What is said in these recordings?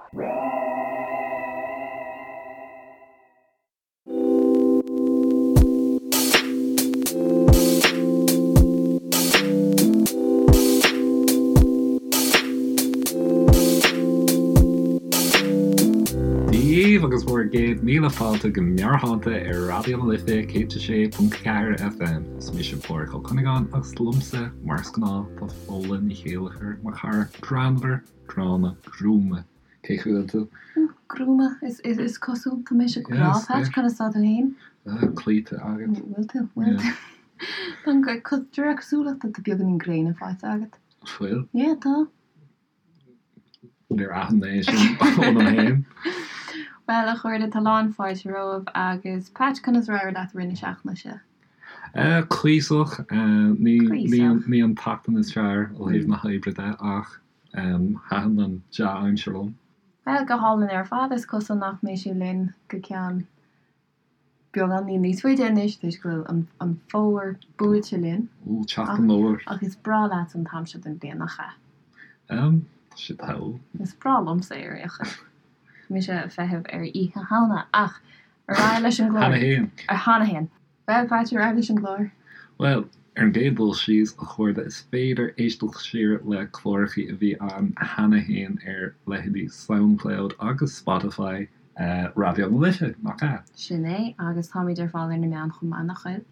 Dia dhaoibh agus bhur gcéad míle fáilte go Meabhairshláinte ar Raidió na Life 106.4 FM. Is mise Pádhraic Ó Cuinneagáin agus liomsa, mar is gnáth, tá Fódhla Ní Chéilleachair, mo chara greannmhar, gránna, gruama. Cén chaoi a bhfuil tú? Gruama, is cosúil. Tá mise go breá, Patch, conas tá tú féin? Cloíte agat. Bhfuil tú? Bhfuil tú? Tá an, de réir cosúlachta, tá beagáinín gréine faighte agat. Bhfuil? Yeah, tá. Níor aithin mé sin ionam féin. Bhuel, a chairde, tá lán fáilte romhaibh agus Patch, conas ar éirigh leat i rith na seachtaine seo? Cuíosach. Ní an tseachtain is fearr ó thaobh na hoibre de ach Thaitin an dea-aimsir liom. Bhuel, go hálainn ar fad. Is cosúil nach mbeidh sé linn go ceann beagáinín níos faide anois toisc go bhfuil an fómhar buailte linn. Ó, teacht an fhómhair. Ach is breá leat an t-am seo den bhliain, nach ea? Tá sé togha. Is breá liomsa é ar aon chaoi. Tá mise ag feitheamh ar Oíche Shamhna ach ar aghaidh leis an gclár. Cheana féin. Cheana féin. Bhuel, Patch, ar aghaidh leis an gclár. Bhuel, ar an gcéad dul síos, a chairde, is féidir éisteacht siar le clárachaí a bhí ann cheana féin ar leithéidí Soundcloud agus Spotify Raidió na Life, nach ea? Sin é, agus táimid ar fáil ar na meáin chomh maith, nach bhfuil?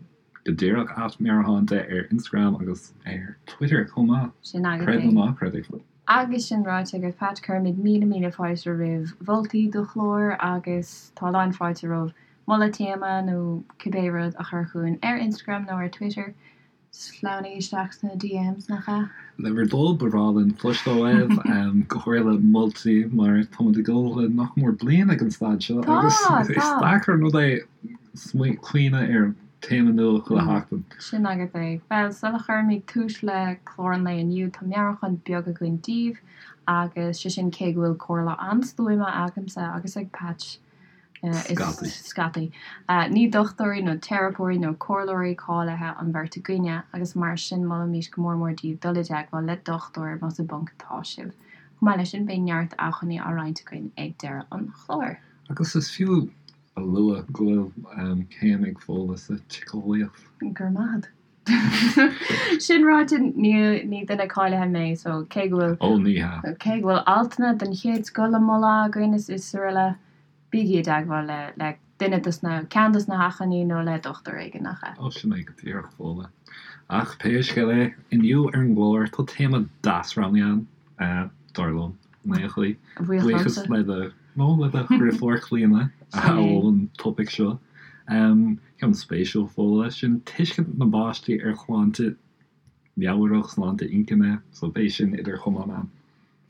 Go díreach, at Meabhairshláinte ar Instagram agus ar Twitter chomh maith. Sin agat Creid é. nó ná creid é. Agus sin ráite agat, Patch, cuirimid míle míle fáilte roimh mholtaí do chláir agus tá lán fáilte romhaibh moladh téama nó cibé rud a chur chugainn ar Instagram nó ar Twitter. Sleamhnaigh isteach sna DMs, nach ea? Le bhur dtoil, ba bhreá linn cloisteáil uaibh, go háirithe moltaí, mar táimid ag dul le nach mór bliain ag an staid seo agus is deacair an rud é cuimhneamh ar théama nua chuile sheachtain. Sin agat é. Bhuel, sula chuirimid tús le clár an lae inniu, tá meabhrúchán beag againn daoibh, agus sé sin cé go bhfuil comhairle an-stuama agamsa agus ag Patch, Scataí. Scataí. Ní dochtúirí nó teiripeoirí nó comhairleoirí cáilithe an bheirt againne, agus mar sin molaimid go mór mór daoibh dul i dteagmháil le dochtúir más i bponc atá sibh. Chomh maith leis sin, beidh neart acmhainní á roinnt againn ag deireadh an chláir. Agus is fiú a lua go bhfuil céim ag Fódhla sa tsíceolaíocht. Go raibh maith agat. Sin ráite, ní duine cáilithe mé, so cé go bhfuil. Ó, ní hea. Cé go bhfuil altanna den chéad scoth le moladh againn is is araile, bígí i dteagmháil le le duine dos na, ceann dos na hacmhainní nó le dochtúir éigin, nach ea? Ó, sin é go díreach, Fódhla. Ach pé scéal é, inniu ar an gclár tá téama deas roghnaithe againn, dar liom, in aon chaoi. Buíochas le do, nó le do dheirfiúr Clíona a mhol an topaic seo. Ceann spéisiúil, Fódhla, sin tuiscint na bpáistí ar shláinte meabhrach, sláinte inchinne, so beidh sin idir chamáin a'm.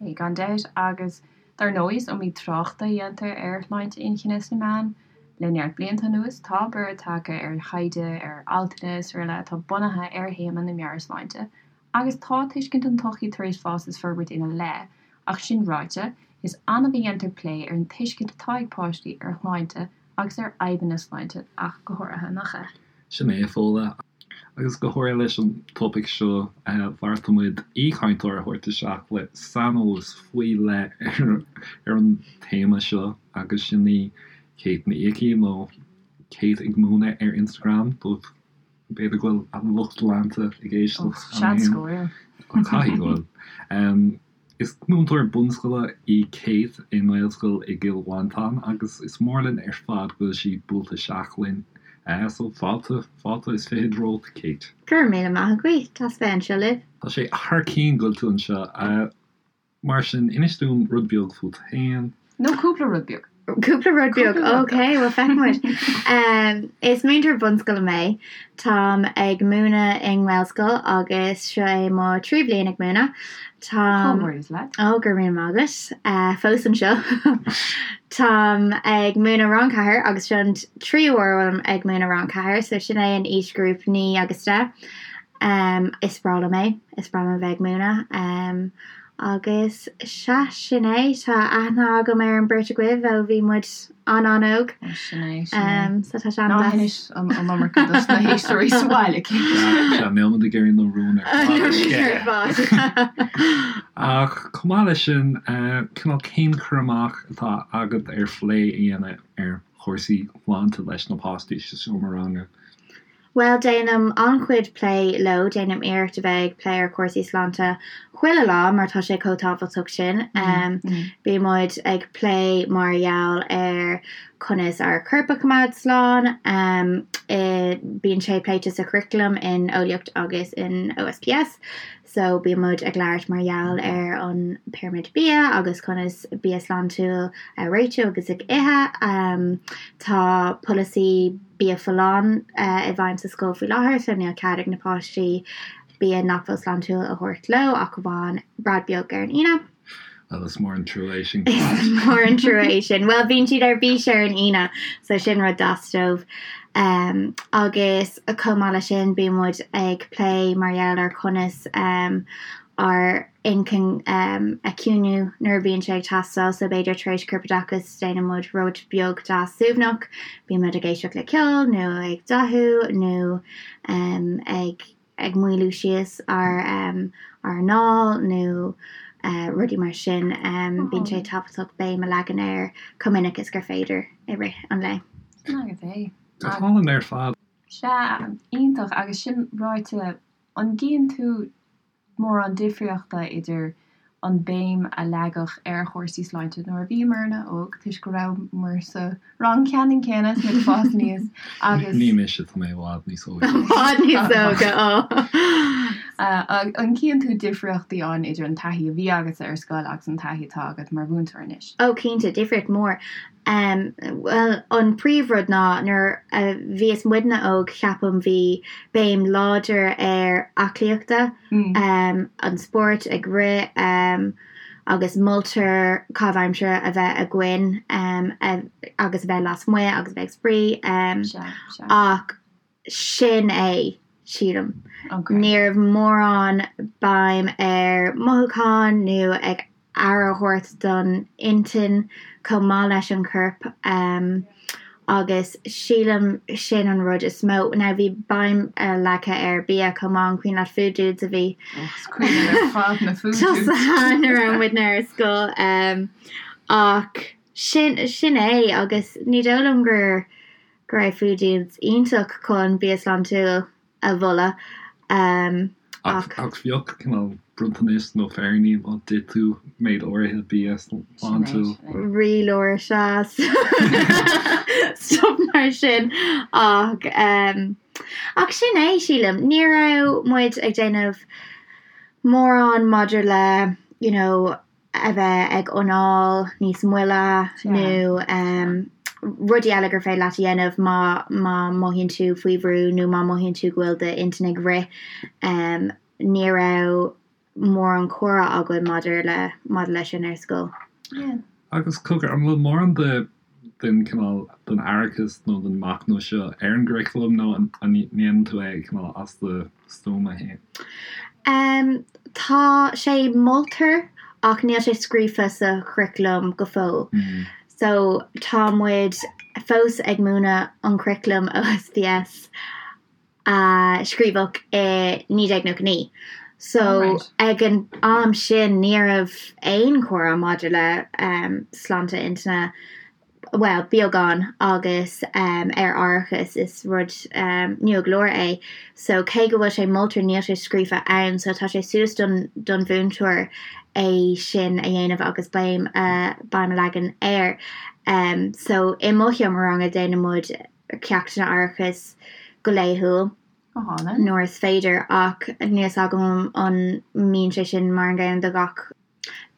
Beidh, gan dabht, agus dar ndóigh is iomaí trácht a dhéantar ar shláinte inchinne sna meáin le neart blianta anuas. Tá borradh tagtha ar thaighde, ar altanna is araile atá bunaithe ar théama na meabhairshláinte, agus tá tuiscint an tsochaí tar éis fás is forbairt ina leith, ach sin ráite, is annamh a dhéantar plé ar an tuiscint atá ag páistí ar shláinte agus ar fhadhbanna sláinte ach go háirithe, nach ea? Sin é, a Fódhla. Agus go háirithe leis an topaic seo, bheartaigh muid aoichainteoir a thabhairt isteach le saineolas faoi leith ar an téama seo agus sin í Kate Ní Icí, nó Kate ag Múineadh ar Instagram, dóibh b'fhéidir go bhfuil a lucht leanta ag éisteacht cheana féin. Seans go bhfuil. Caithfidh go bhfuil. Is múinteoir bunscoile í Kate i nGaelscoil i gCill Mhantáin agus is mór linn ar fad go bhfuil sí buailte isteach linn. So fáilte, fáilte is fichead romhat Kate. Go raibh míle maith agaibh, deas bheith anseo libh. Tá sé thar cionn go bhfuil tú anseo. Mar sin, inis dúinn rud beag fút féin. Nó cúpla rud beag. Cúpla rud beag, ok, bhuel feicfidh muid. Is múinteoir bunscoile mé. Táim ag múineadh i nGaelscoil agus seo é mo tríú bliain ag múineadh. Táim. Comhghairdeas leat. Ó, go raibh míle maith agat. Fós anseo. Táim ag múineadh rang 4 agus seo an tríú huair a bhfuilim ag múineadh rang 4, so sin é an aoisghrúpa 9 agus 10. Is breá liom é, is breá liom a bheith ag múineadh. Agus sea, sin é. Tá aithne agam ar an beirt agaibh ó bhí muid an-an-óg. Sin é, sin é. So tá sé an-deas. Ná hinis an iomarca dos na héisteoirí sa bhaile, cinnte. Sea, níl muid ag iarraidh na rúin ar fad a sceitheadh. Ach chomh maith leis sin, cineál cén cur amach atá agat ar phlé a dhéanamh ar chúrsaí sláinte leis na páistí sa seomra ranga? Bhuel, déanaim an-chuid plé leo, déanaim iarracht a bheith ag plé ar chúrsaí sláinte chuile lá mar tá sé chomh tábhachtach sin. Bíonn muid ag plé mar gheall ar conas ár corp a choimeád slán, bíonn sé pléite sa churaclam in Eolaíocht agus in OSPS. So bíonn muid ag labhairt mar gheall ar an pirimid bia agus conas bia sláintiúil a réitiú agus ag ithe. Tá polasaí bia folláin i bhfeidhm sa scoil faoi láthair so níl cead ag na páistí bia nach bhfuil sláintiúil a thabhairt leo ach amháin bread beag ar an Aoine. Bhuel, is mór an trua é sin. Is mór an trua é sin. Bhuel, bíonn siad ar bís ar an Aoine, so sin rud deas dóibh. Um, agus chomh maith leis sin, bíonn muid ag plé mar gheall ar conas um, ár inchinn um, a chiúnú nuair a bhíonn sé ag teastáil, so b'fhéidir tar éis corpoideachas déanann muid rud beag deas suaimhneach, bíonn muid ag éisteacht le ceol nó ag dathú nó um, ag ag maolú síos ár ár anáil nó rudaí mar sin. Bíonn sé tábhachtach béim a leagan air chomh minic is gur féidir i rith an lae. Sin agat é. Go hálainn ar fad. Sea, iontach. Agus sin ráite, an gcíonn tú mórán difríochta idir an béim a leagadh ar chúrsaí sláinte nuair a bhíomarna óg, toisc go rabhamar sa rang ceannann céanna is muid ag fás aníos agus. Ní mise, tá mé i bhfad níos óige. I bhfad níos óige, ó. An gcíonn tú difríochtaí ann idir an taithí a bhí agatsa ar scoil agus an taithí atá agat mar mhúinteoir anois? Ó, cinnte, difríocht mhór. Bhuel, an príomhrud ná nuair a bhíos muidne óg, ceapaim, bhí béim láidir ar aclaíochta, an spórt, ag rith, agus moltar caitheamh aimsire a bheith againn agus a bheith lasmuigh agus a bheith ag spraoi. Ach sin é, sílim. Ní raibh mórán béim ar mothúcháin nó ag aire a thabhairt don intinn chomh maith leis an chorp agus sílim sin an rud is mó. Now bhí béim leagtha ar bia chomh maith, an cuimhin leat Food Dudes a bhí tosaithe nuair a raibh muidne ar scoil ach sin sin é agus ní dóigh liom gur go raibh Food Dudes iontach chun bia sláintiúil a mholadh ach. Ach bheadh cineál bronntanais nó féiríní má d'ith tú méid áirithe bia sláintiúil. Rialóir sea stuff mar sin ach ach sin é sílim. Ní raibh muid ag déanamh mórán maidir le you know a bheith ag anáil níos moille nó rudaí eile gur féidir leat a dhéanamh má má mothaíonn tú faoi bhrú nó má mothaíonn tú go bhfuil d'intinn ag rith. Ní raibh mórán comhrá againn maidir le maidir leis sin ar scoil. Agus cogar, an bhfuil mórán de den cineál den aireachas nó den machnamh seo ar an gcuraclam nó an ndéanann tú é cineál as do stuama féin? Tá sé moltar ach níl sé scríofa sa churaclam go fóill. So tá muid fós ag múineadh an curaclam OSPS a scríobhadh i 1999. So ag an am sin ní raibh aon chomhrá maidir le sláinte intinne, bhuel, beagán, agus ar aireachas, is rud nua go leor é. So cé go bhfuil sé moltar níl sé scríofa ann, so tá sé suas don don mhúinteoir é sin a dhéanamh agus béim a béim a leagan air. So i mo sheomra ranga déanann muid ceachtanna aireachais go laethúil nuair is féidir ach níl a fhios agam an mbíonn sé sin mar an gcéanna do gach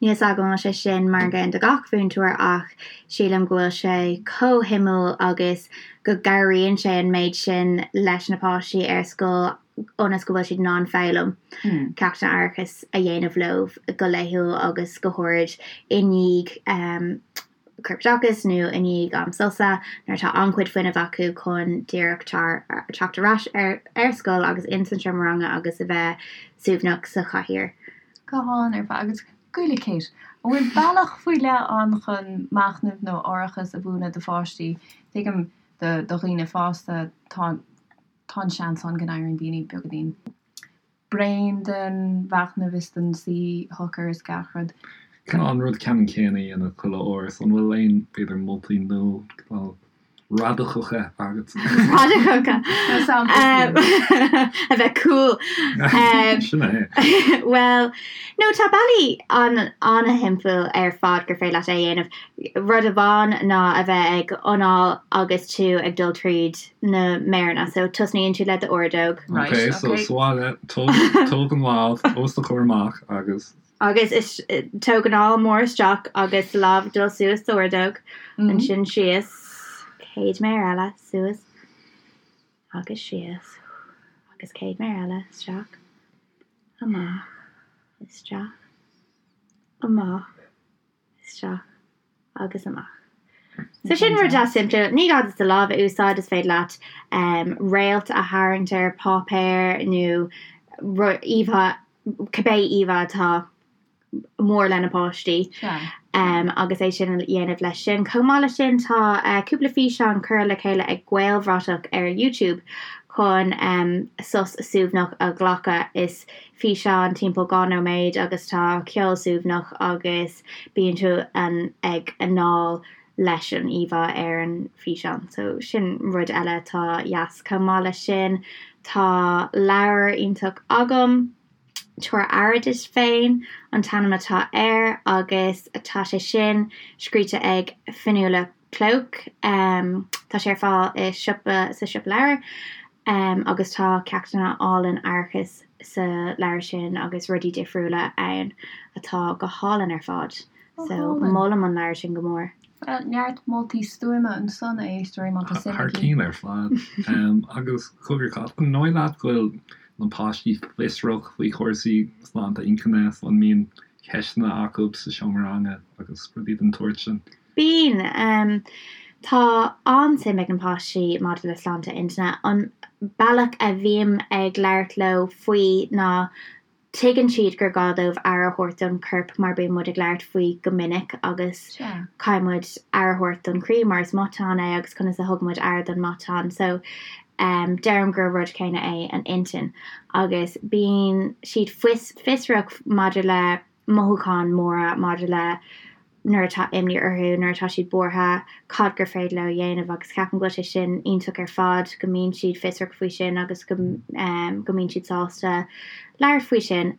níl a fhios agam an bhfuil sé sin mar an gcéanna do gach mhúinteoir ach sílim go bhfuil sé chomh shuimiúil agus go gcabhraíonn sé an méid sin leis na páistí ar scoil ionas go bhfuil siad in ann foghlaim ceachtanna aireachais a dhéanamh leo go laethúil agus go háirid i ndiaidh corpoideachas nó i ndiaidh am sosa nuair atá an-chuid fuinnimh acu chun díreach teacht ar ais ar scoil agus ins an seomra ranga agus a bheith suaimhneach sa chathaoir. Go hálainn ar fad. Agus Goile Kate, an bhfuil bealach faoi leith ann chun machnamh nó aireachas a mhúineadh do pháistí? Tuigim do dhaoine fásta tá tá an seans ann go n-éiríonn daoine beagáinín bréan den mhachnamh is den suí shocair is gach rud. Cineál an rud ceannann céanna a dhéanamh chuile uair, so an bhfuil aon, b'fhéidir, moltaí nó cineál radacacha agat? Radacacha? A bheith cool. Sin é. Bhuel, no tá bealaí an-shimplí ar fad gur féidir leat é a dhéanamh. Rud amháin ná a bheith ag anáil agus tú ag dul tríd na méireanna. So tosnaíonn tú le d'ordóg. Right, Ok, so ok. sa bhaile, tóg, tóg an lámh os do chomhair amach agus. Agus is, tóg anáil mór isteach agus lámh ag dul suas d'ordóg, ansin síos, céad méar eile, suas agus síos, agus céad méar eile, isteach, amach, isteach, amach. isteach agus amach. So sin rud deas simplí. Ní gá duit do lámh a úsáid, is féidir leat réalt a tharraingt ar páipéar nó íomhá, cibé íomhá atá mór le na páistí agus é sin a dhéanamh leis sin. Chomh maith leis sin tá cúpla físeán curtha le chéile ag Gaelbhratach ar YouTube chun sos suaimhneach a ghlacadh. Is físeán timpeall 2 nóiméad agus tá ceol suaimhneach agus bíonn tú ag anáil leis an íomhá ar an físeán. So sin rud eile atá dheas. Chomh maith leis sin tá leabhar iontach agam, Tabhair Aire Duit Féin an t-ainm atá air agus tá sé sin scríte ag Fionnuala Cloke. Tá sé ar fáil i siopa, sa siopa leabhar agus tá ceachtanna álainn aireachais sa leabhar sin agus rudaí difriúla ann atá go hálainn ar fad. So molaim an leabhar sin go mór. Bhuel, neart moltaí stuama ansan, a éisteoirí, má tá suim Thar agaibh. cinn ar fad. Agus cogar, an dóigh leat go bhfuil na páistí fiosrach faoi chúrsaí sláinte inchinne? An mbíonn ceisteanna acu sa seomra ranga agus rudaí den tsórt sin? Bíonn. Tá an-suim ag na páistí maidir le sláinte intinne. An bealach a bhím ag labhairt leo faoi ná tuigeann siad gur gá dóibh aire a thabhairt don chorp mar bíonn muid ag labhairt faoi go minic agus caithfidh muid aire a thabhairt don chroí mar is matán é agus conas a thugann muid aire don matán. So deirim gur rud céanna é an intinn agus bíonn siad fiosrach maidir le mothúcháin mhóra maidir le nuair atá imní orthu, nuair atá siad buartha, cad gur féidir leo a dhéanamh agus ceapaim go bhfuil sé sin iontach ar fad, go mbíonn siad fiosrach faoi sin agus go go mbíonn siad sásta labhairt faoi sin.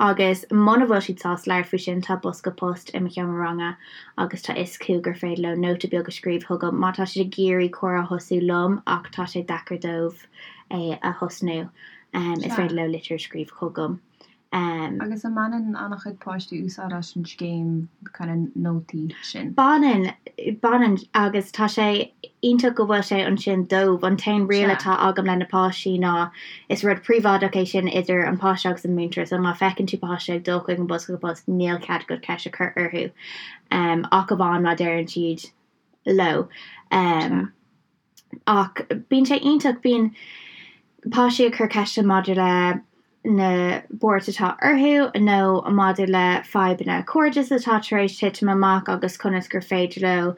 Agus muna bhfuil siad sásta labhairt faoi sin, tá bosca post i mo sheomra ranga agus tá fhios acu gur féidir leo nóta beag a scríobh chugam má tá siad ag iarraidh comhrá a thosú liom ach tá sé deacair dóibh é a thosnú, is féidir leo litir a scríobh chugam. Agus an mbaineann an-chuid páistí úsáid as an scéim kind of nótaí sin? Baineann, baineann agus tá sé iontach go bhfuil sé ansin dóibh. An t-aon riail atá agam le na páistí ná is rud príobháideach é sin idir an páiste agus an múinteoir so má feiceann tú páiste ag dul chuig an bosca post níl cead agat ceist a chur orthu ach amháin má deireann siad leo. Ach bíonn sé iontach, bíonn páistí ag cur ceisteanna maidir le na buairt atá orthu nó maidir le fadhbanna cairdis atá tar éis titim amach agus conas gur féidir leo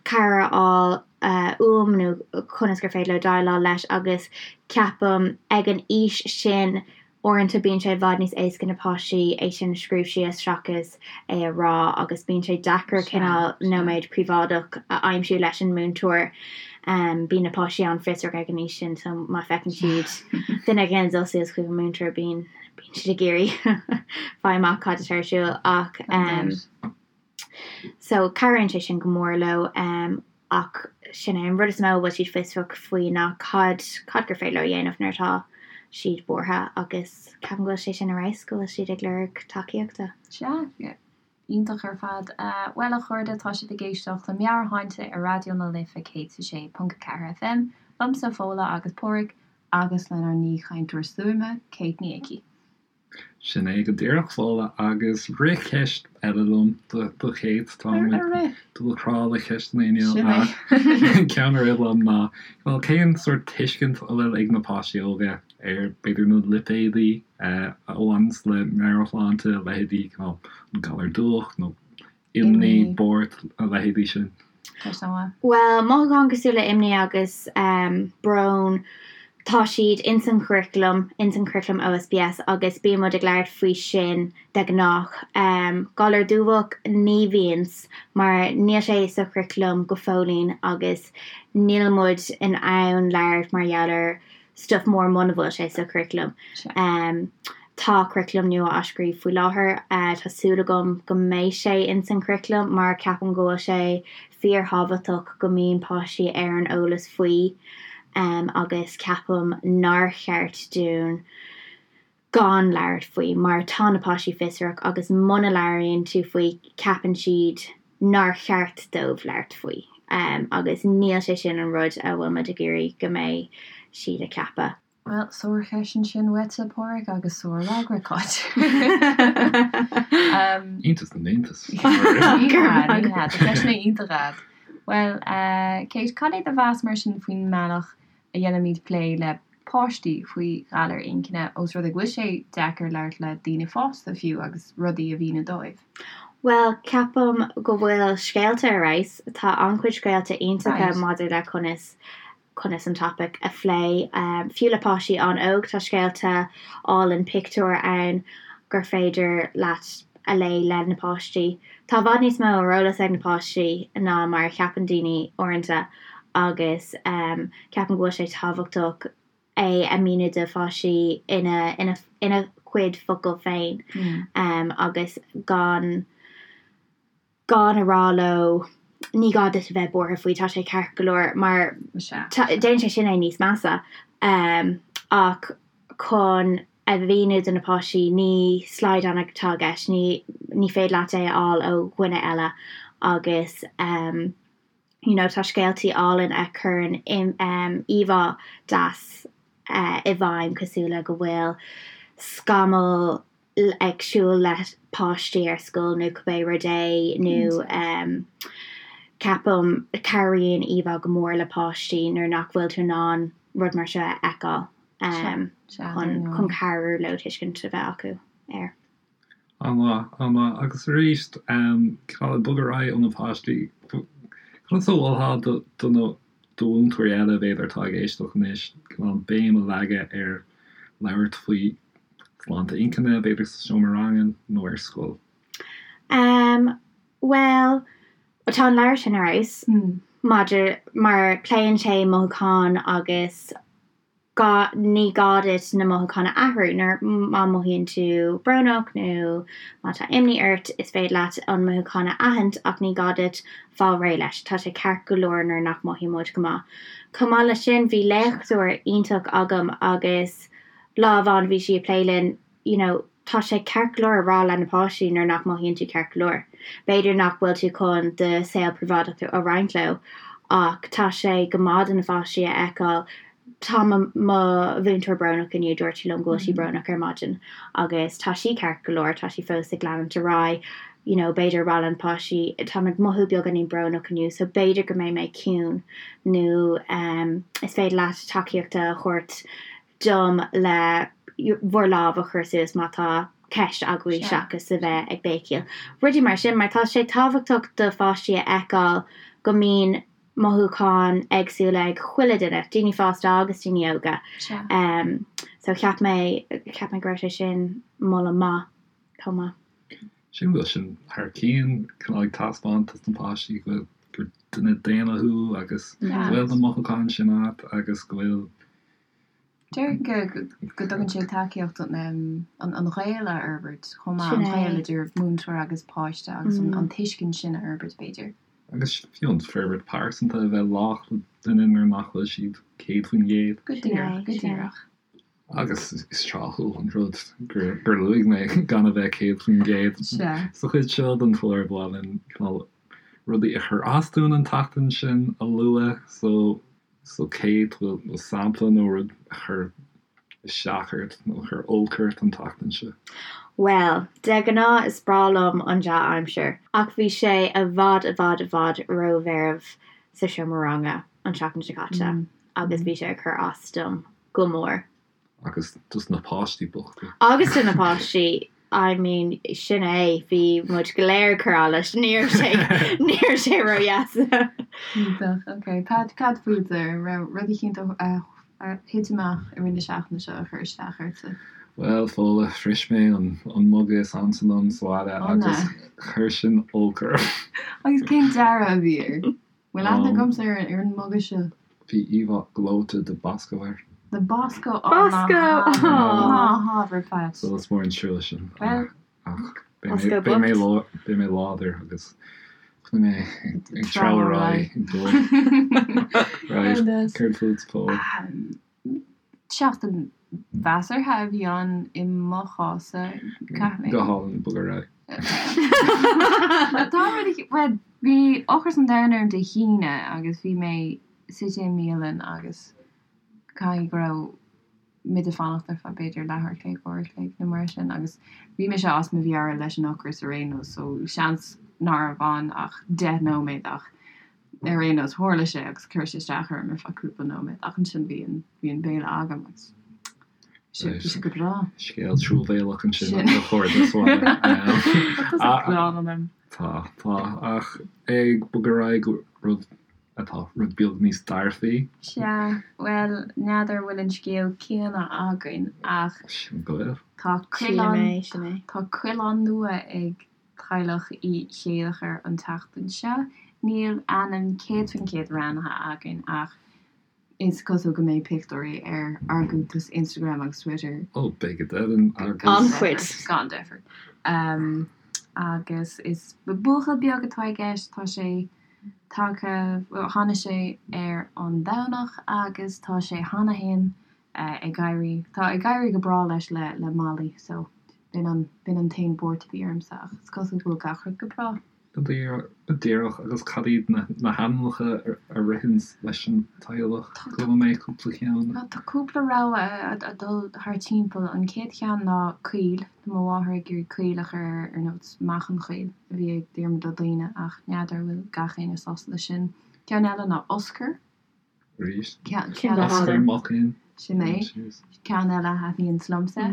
cabhair a fháil uaim nó conas gur féidir leo déileáil leis agus ceapaim ag an aois sin Uaireanta bíonn sé i bhfad níos éasca na páistí é sin a scríobh síos seachas é a rá agus bíonn sé deacair cineál nóiméad príobháideach a aimsiú leis an múinteoir. Bíonn na páistí an-fhiosrach ag an aois sin so má feiceann siad duine éigin ag dul suas chuig an múinteoir bíonn bíonn siad ag iarraidh fáil amach cad atá ar siúl ach So cabhraíonn sé sin go mór leo ach sin é an rud is mó a bhfuil siad fiosrach faoi ná cad, cad gur féidir leo a dhéanamh nuair atá siad buartha agus ceapaim go bhfuil sé sin ar fheabhas go bhfuil siad ag lorg tacaíochta. Sea, iontach ar fad. Bhuel a chairde, tá sibh ag éisteacht le Meabhairshláinte ar Raidió na Life 106.4 FM, liomsa Fódhla agus Páraic agus lenár n-aoichainteoir stuaime, Kate Ní Icí. Sin é go díreach, Fódhla, agus rith ceist eile liom do Kate. Tá muid dul crá le ceisteanna inniu ach ceann a rith liom ná, bhuel, cén sórt tuiscint a bhfuil ag na páistí óga ar b'fhéidir na lipéadaí a bhaineanns le meabhairshláinte, leithéidí cineál an galar dubhach nó imní, buairt, a leithéidí sin. Bhuel, mothúcháin cosúil le imní agus brón, tá siad ins an churaclam, ins an churaclam OSPS agus bíonn muid ag labhairt faoi sin de ghnách. Galar dubhach, ní bhíonns, mar níl sé sa churaclam go fóillín agus níl muid in ann labhairt mar gheall ar stuff mór muna bhfuil sé sa churaclam. Tá curaclam nua á scríobh faoi láthair. Tá súil agam go mbeidh sé ins an churaclam mar ceapaim go bhfuil sé fíorthábhachtach go mbíonn páistí ar an eolas faoi agus ceapaim nár cheart dúinn gan labhairt faoi mar tá na páistí fiosrach agus muna labhraíonn tú faoi ceapann siad nár cheart dóibh labhairt faoi agus níl sé sin an rud a bhfuil muid ag iarraidh go mbeidh siad ag ceapadh. Bhuel, sárcheist ansin uaitse, Páraic, agus sárfhreagra, Cáit. Iontas na n-iontas. Ní hea, ní hea, tá ceisteanna iontacha a'd. Bhuel, Kate, cad é do mheas mar sin faoin mbealach a dhéanaimid plé le páistí faoi ghalair inchinne, ós rud é go bhfuil sé deacair labhairt le daoine fásta fiú agus rudaí a mhíniú dóibh. Bhuel, ceapaim go bhfuil scéalta ar fheabhas. Tá an-chuid scéalta iontacha maidir le conas conas an topaic a phlé. Fiú le páistí an-óg, tá scéalta álainn pictiúr ann gur féidir leat a léigh le na páistí. Tá i bhfad níos mó ar eolas ag na páistí ná mar a cheapann daoine uaireanta agus ceapaim go bhfuil sé tábhachtach é a mhíniú do pháistí ina ina ina gcuid focal féin agus gan gan a rá leo ní gá duit a bheith buartha faoi, tá sé ceart go leor mar déanann sé sin é níos measa. Ach chun a mhíniú do na páistí ní slaghdán atá i gceist, ní ní féidir leat é a fháil ó dhuine eile agus you know tá scéaltaí álainn a chuireann íomhá deas i bhfeidhm cosúil le go bhfuil scamall ag siúl le páistí ar scoil nó cibé rud é nó ceapaim cabhraíonn íomhá go mór le páistí nuair nach bhfuil tú in ann rud mar seo a fheiceáil chun chun cabhrú leo tuiscint a bheith acu air. An-mhaith, an-mhaith. Agus arís, cineál ag bogadh ar aghaidh ó na páistí, conas a mholfá do do na do mhúinteoirí eile, b'fhéidir, atá ag éisteacht anois, cineál béim a leagadh ar labhairt faoi sláinte inchinne, b'fhéidir sa seomra ranga nó ar scoil? Um, bhuel, tá an leabhar sin ar fheabhas maidir, mar pléann sé mothúcháin agus gá, ní gá duit na mothúcháin a athrú nuair, má mhothaíonn tú brónach nó má tá imní ort, is féidir leat an mothúchán a aithint ach ní gá duit fáil réidh leis, tá sé ceart go leor nuair nach mothaíonn muid go maith. Chomh maith leis sin, bhí léachtóir iontach agam agus lá amháin bhí sí ag plé linn, you know, tá sé ceart go leor a rá le na páistí nuair nach mothaíonn tú ceart go leor. B'fhéidir nach bhfuil tú chun do saol príobháideach a roinnt leo ach tá sé go maith do na pháistí a fheiceáil tá mo mo mhúinteoir brónach inniu, dúirt sí liom go bhfuil sí brónach ar maidin agus tá sí ceart go leor, tá sí fós ag leanúint ar aghaidh, you know, b'fhéidir a rá le na páistí táim ag mothú beagáinín brónach inniu so b'fhéidir go mbeidh mé ciúin nó um, is féidir leat tacaíocht a thabhairt dom le bhur lámh a chur suas má tá ceist agaibh seachas a bheith ag béicíl. Rudaí mar sin, mar tá sé tábhachtach do pháistí a fheiceáil go mbíonn mothúcháin éagsúla ag chuile duine, daoine fásta agus daoine óga. So cheap mé, cheap mé go raibh sé sin moladh maith chomh maith. Sílim go bhfuil sin thar cionn, cineál ag taispeáint dos na páistí go bhfuil, gur duine daonna thú agus go bhfuil na mothúcháin sin agat agus go bhfuil Déarfainn go dtugann sé tacaíocht an gaol a fhorbairt chomh maith, an gaol idir múinteoir agus páiste agus an tuiscint sin a fhorbairt, b'fhéidir. Agus fiú an forbairt pearsanta a bheith lách le duine nuair nach bhfuil siad 100%. Go díreach, go díreach. Agus is tráthúil an rud gur luaigh mé gan a bheith 100%. Sa chuid seo den chlár ba mhaith linn cineál rudaí a chuir as dúinn an tseachtain sin a lua so So Kate, bhfuil sampla nó rud a chuir isteach ort nó a chuir olc ort an tseachtain seo? Bhuel, de ghnáth is breá liom an dea-aimsir, ach bhí sé i bhfad i bhfad i bhfad rómheirbh sa seomra ranga an tseachtain seo caite agus bhí sé ag cur as dom go mór. Agus dos na páistí bochta. Agus do na páistí, I mean, sin é, bhí muid go léir ag cur allais, ní raibh sé, ní raibh sé ródheas. Iontach, ok. Pat, cad fútsa? An raibh rud eicínt a thit amach i rith na seachtaine seo a chuir isteach ortsa? Bhuel, Fódhla, bhris mé an muga is ansa liom sa bhaile agus chuir sin olc orm. Agus cén dearadh a bhí air? Bhfuil aithne agamsa ar an muga seo? Bhí íomhá gleoite de Bosco air. De Bosco? Ó, ná ná hábhair, Pat. So is mór an trua sin. Ach beidh mé beidh mé láidir agus beidh mé ag treabhadh ar aghaidh ag dul. Right, céard fút, Fódhla? Seachtain mheasartha a bhí ann i mo chás-sa, caithfidh mé. Go hálainn, bog ar aghaidh. Tá rud eicínt, bhuel, bhí ocras an domhain orm Dé hAoine agus bhí mé suite i mbialann agus caithfidh go raibh muid ag fanacht ar feadh b'fhéidir leathuair a chloig, uair a chloig nó mar sin agus bhí mise as mo mheabhair leis an ocras ar aon nós so seans nárbh ann ach 10 nóiméad ach Ar aon nós, tharla sé agus chuir sé isteach orm ar feadh cúpla nóiméad ach ansin bhí an, bhí an béile agam agus bhí sé go breá. Scéal truamhéalach ansin a chairde sa bhaile. Tá tusa gránna liom. Tá, tá, ach ag bogadh ar aghaidh go rud atá rud beag níos dearfaí. Sea, bhuel, n'fheadar an bhfuil an scéal céanna againn ach Sin go bhfuil. tá coileán, tá coileán nua ag Teaghlach Uí Chéilleachair an tseachtain seo. Níl ainm 100% roghnaithe againn ach is cosúil go mbeidh pictiúirí ar ár gcuntais Instagram agus Twitter. Ó, beidh go deimhin agus. An-chuid. Gan deifir. Agus is buachaill beag atá i gceist, tá sé tagtha, bhuel, tháinig sé ar an Domhnach agus tá sé cheana féin ag éirí, tá ag éirí go breá leis le le Molly so b'in an, b'in an t-aon bhuairt a bhí ormsa ach is cosúil go bhfuil gach rud go breá. Go díreach, agus cad iad na na hainmneacha a ritheann leis an teaghlach? Chuala mé cúpla ceann. Tá cúpla rogha ag dul thar timpeall. An chéad cheann ná Caol, tá mo mháthair ag iarraidh Caol a chur air ar nós Mac an Chaoil a bhí ag Diarmuid Ó Duibhne ach n'fheadar an bhfuil gach éinne sásta leis sin. Ceann eile ná Oscar. Arís. Oscar Mac Fhinn. Sin é. Ceann eile a thaitníonns liomsa.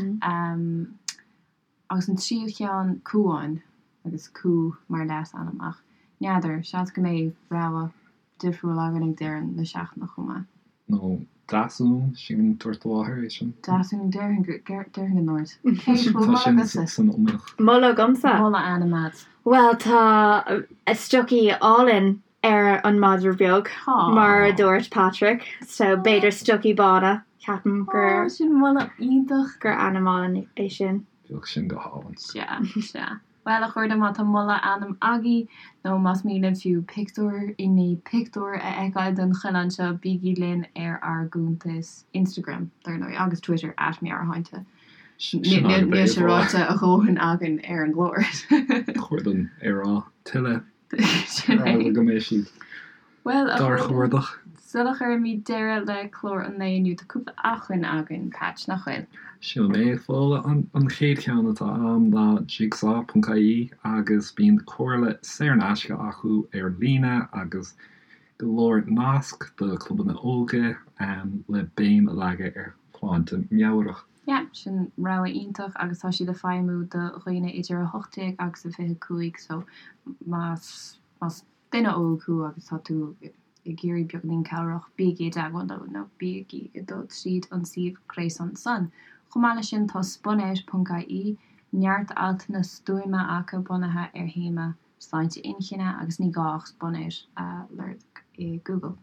Agus an tríú ceann, Cuán, agus Cú mar leasainm ach n'fheadar, seans go mbeidh rogha difriúil againn ag deireadh na seachtaine chomh maith. Nó Deasún, sin dúirt do mháthair é sin. Deasún, déarfainn go, déarfainn go ndúirt. Cé bhfuil moladh agatsa? San iomaíocht. Moladh agamsa? Moladh ainm agat. Bhuel, tá stocaí álainn ar an madra beag, mar a dúirt Patrick, so b'fhéidir stocaí bána, ceapaim gur. Ó, sin moladh iontach! gur ainm álainn é sin. Bheadh sin go hálainn. Sea, sea. Bhuel, a chairde, má tá moladh ainm agaibh, nó más mian libh fiú pictiúr i ndiaidh pictiúr a fheiceáil den choileán seo, bígí linn ar ár gcuntas Instagram, dar ndóigh, agus Twitter, at Meabhairshláinte. Níl sé ráite a dhóthain againn ar an gclár. Chóir dom é a rá tuilleadh. Sin é. Go mbeidh siad Bhuel, a dár chuardach. Sula gcuirimid deireadh le clár an lae inniu, tá cúpla acmhainn againn, Patch, nach bhfuil? Sin é, Fódhla. An chéad cheann atá agam ná jigsaw.ie agus bíonn comhairle saor in aisce acu ar líne agus go leor nasc do chlubanna óige le béim a leagadh ar shláinte meabhrach. Yeah, sin rogha iontach agus tá siad ag feidhmiú do dhaoine idir 18 agus 25 so más más duine óg thú agus tá tú ag iarraidh beagáinín cabhrach, bígí i dteagmháil leo nó bígí ag dul tríd an suíomh gréasáin san. Chomh maith leis sin tá spunout ponc ie, neart altanna stuama acu bunaithe ar théama sláinte inchinne agus ní gá ach spunout a lorg i Google.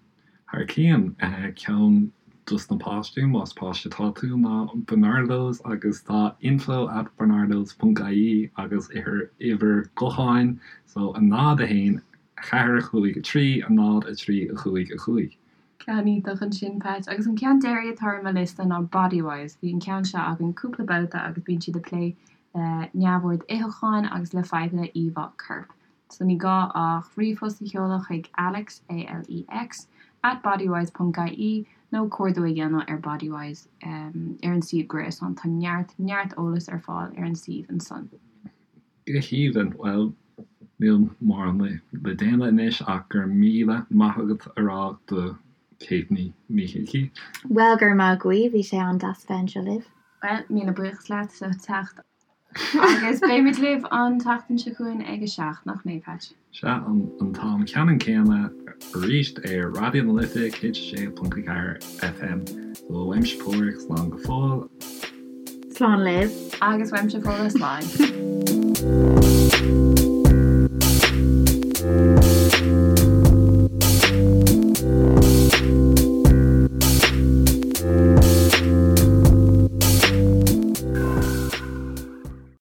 Thar cionn, ceann dos na páistí, más páiste atá tú, ná Barnardo's agus tá info at barnardos ponc ie agus uimhir gutháin so 0 1 4 5 3 0 3 5 5. Ceann iontach ansin, Pat. Agus an ceann deiridh atá ar mo liosta ná Bodywhys. Bhí an ceann seo againn cúpla babhta agus bíonn siad ag plé le neamhord itheacháin agus le fadhbanna íomhá coirp. So ní gá ach ríomhphost a sheoladh chuig Alex, A-L-E-X, at bodywhys ponc ie nó cuardú a dhéanamh ar Bodywhys ar an suíomh gréasáin. Tá neart, neart eolas ar fáil ar an suíomh ansan. Go haoibhinn. Bhuel, níl mórán le déanamh anois ach go raibh míle maith agat a rá do. Kate Ní hIcí. Bhuel, go raibh maith agaibh, bhí sé an-deas bheith anseo libh. Bhuel, míle buíochas leat as ucht teacht. Agus beimid libh an tseachtain seo chugainn ag a 7, nach mbeidh, Patch? Sea, an t-am ceannann céanna arís ar Raidió na Life 106.4 FM. So, uaimse Pádraig, slán go fóill. Slán libh. Agus uaimse Fódhla, slán.